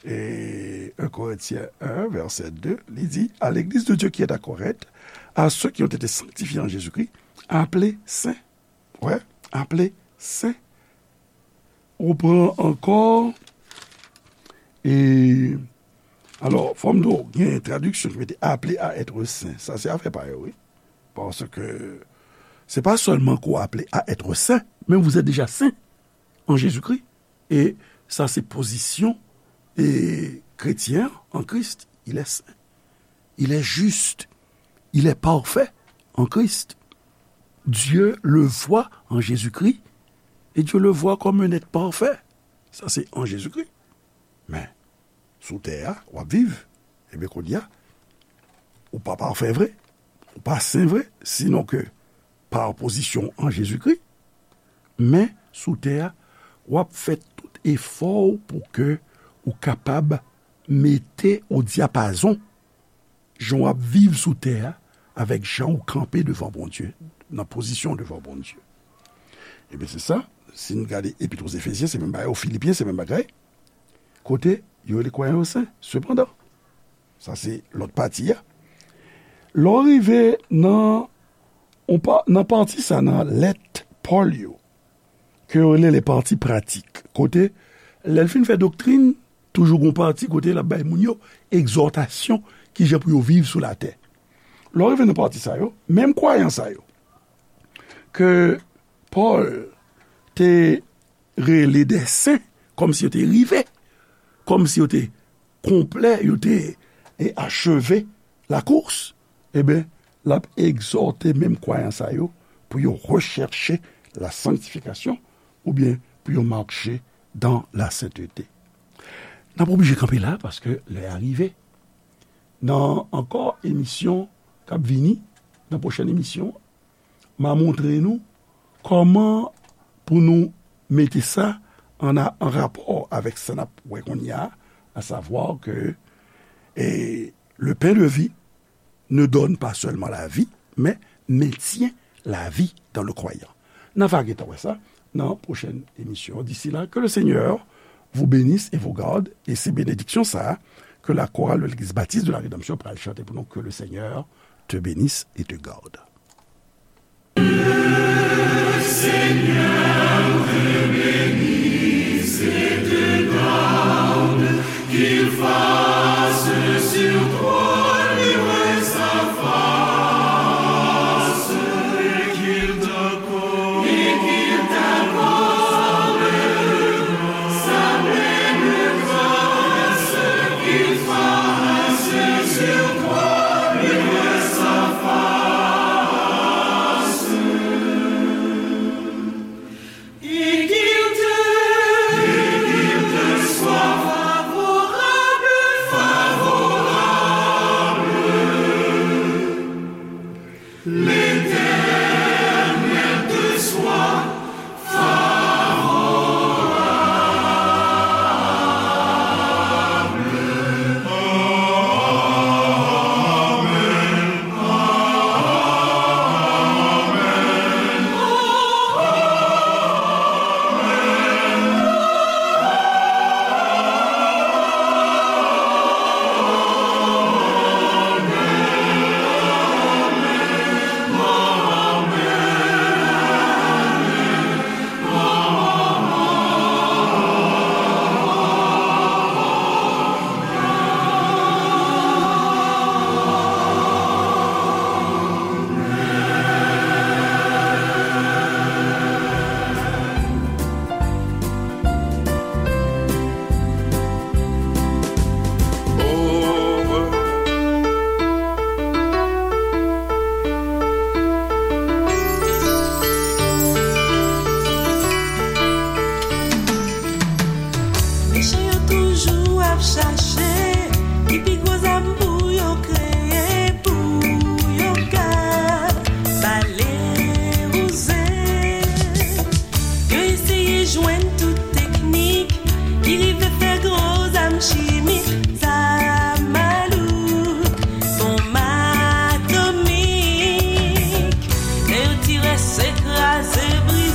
e en Korentyen en, vèsè de, li di, à l'église de Dieu qui est à Corinthe, à ceux qui ont été sanctifiés en Jésus-Christ, appelés saints. Wè, appelés saints. Ou pran ankò, e, alò, fò m di w, gen tradiksyon ki mete appelés à être saints. Sa se afè pa yo, wi. Paske se pa sèlman ke w aple à être saint, men vous êtes déjà saint en Jésus-Christ. E sa se pozisyon, e, kretyen an Christ. Il est saint. Il est juste. Il est parfait en Christ. Dieu le voit en Jésus-Christ et Dieu le voit comme un être parfait. Sa se an Jezikri. Men, sou tè a, w ap viv. Ebyen, kounye a, ou pa pafè vre, ou pa sen vre, sinon ke pa pozisyon an Jezikri. Men, sou tè a, w ap fè tout efò w pou ke ou kapab mete o dyapazon jan w ap viv sou tè a avèk jan w kanpe devan Bondye, nan pozisyon devan Bondye. Ebyen, se sa, si n gade Epit o Efezyen, se menm bagay, o Filipyen, se menm bagay. Kote yo rele kwayan yo sen, sepandan. Sa se lòt pati a. Lè w rive nan, on pa, nan pati sa nan lèt Pòl yo, ke yo rele les parties pratiques. Kote, lè l fin fè doktrin, toujou gon pati kote l ap bay moun yo egzòtasyon, kijan pou yo viv sou latè. Lè w rive nan pati sa yo, menm kwayan sa yo, ke Pòl te rele de sen, kòmsi yo te rive, kòmsi yo te konplè, yo te, e, acheve la course, ebyen, l ap egzòte menm kwayan sa yo pou yo rechèche la sanctification, oubyen pou yo mache dans la sainteté. N ap oblije kanpe la, paske lè a rive. Nan ankò emisyon k ap vini, nan pwochèn emisyon, m a montre nou kòman pou nou mete sa an, an rapò avèk sa n ap wè kounye a, à savoir que, eh, le pain de vie ne donne pas seulement la vie, mais maintient la vie dans le croyant. N a va gentan wè sa nan pwochèn emisyon. D'ici là, que le Seigneur vous bénisse et vous garde, et se benediksyon sa a, ke la chorale de l'Église Baptiste de la Rédemption pral chante pou nou, que le Seigneur te bénisse et te garde.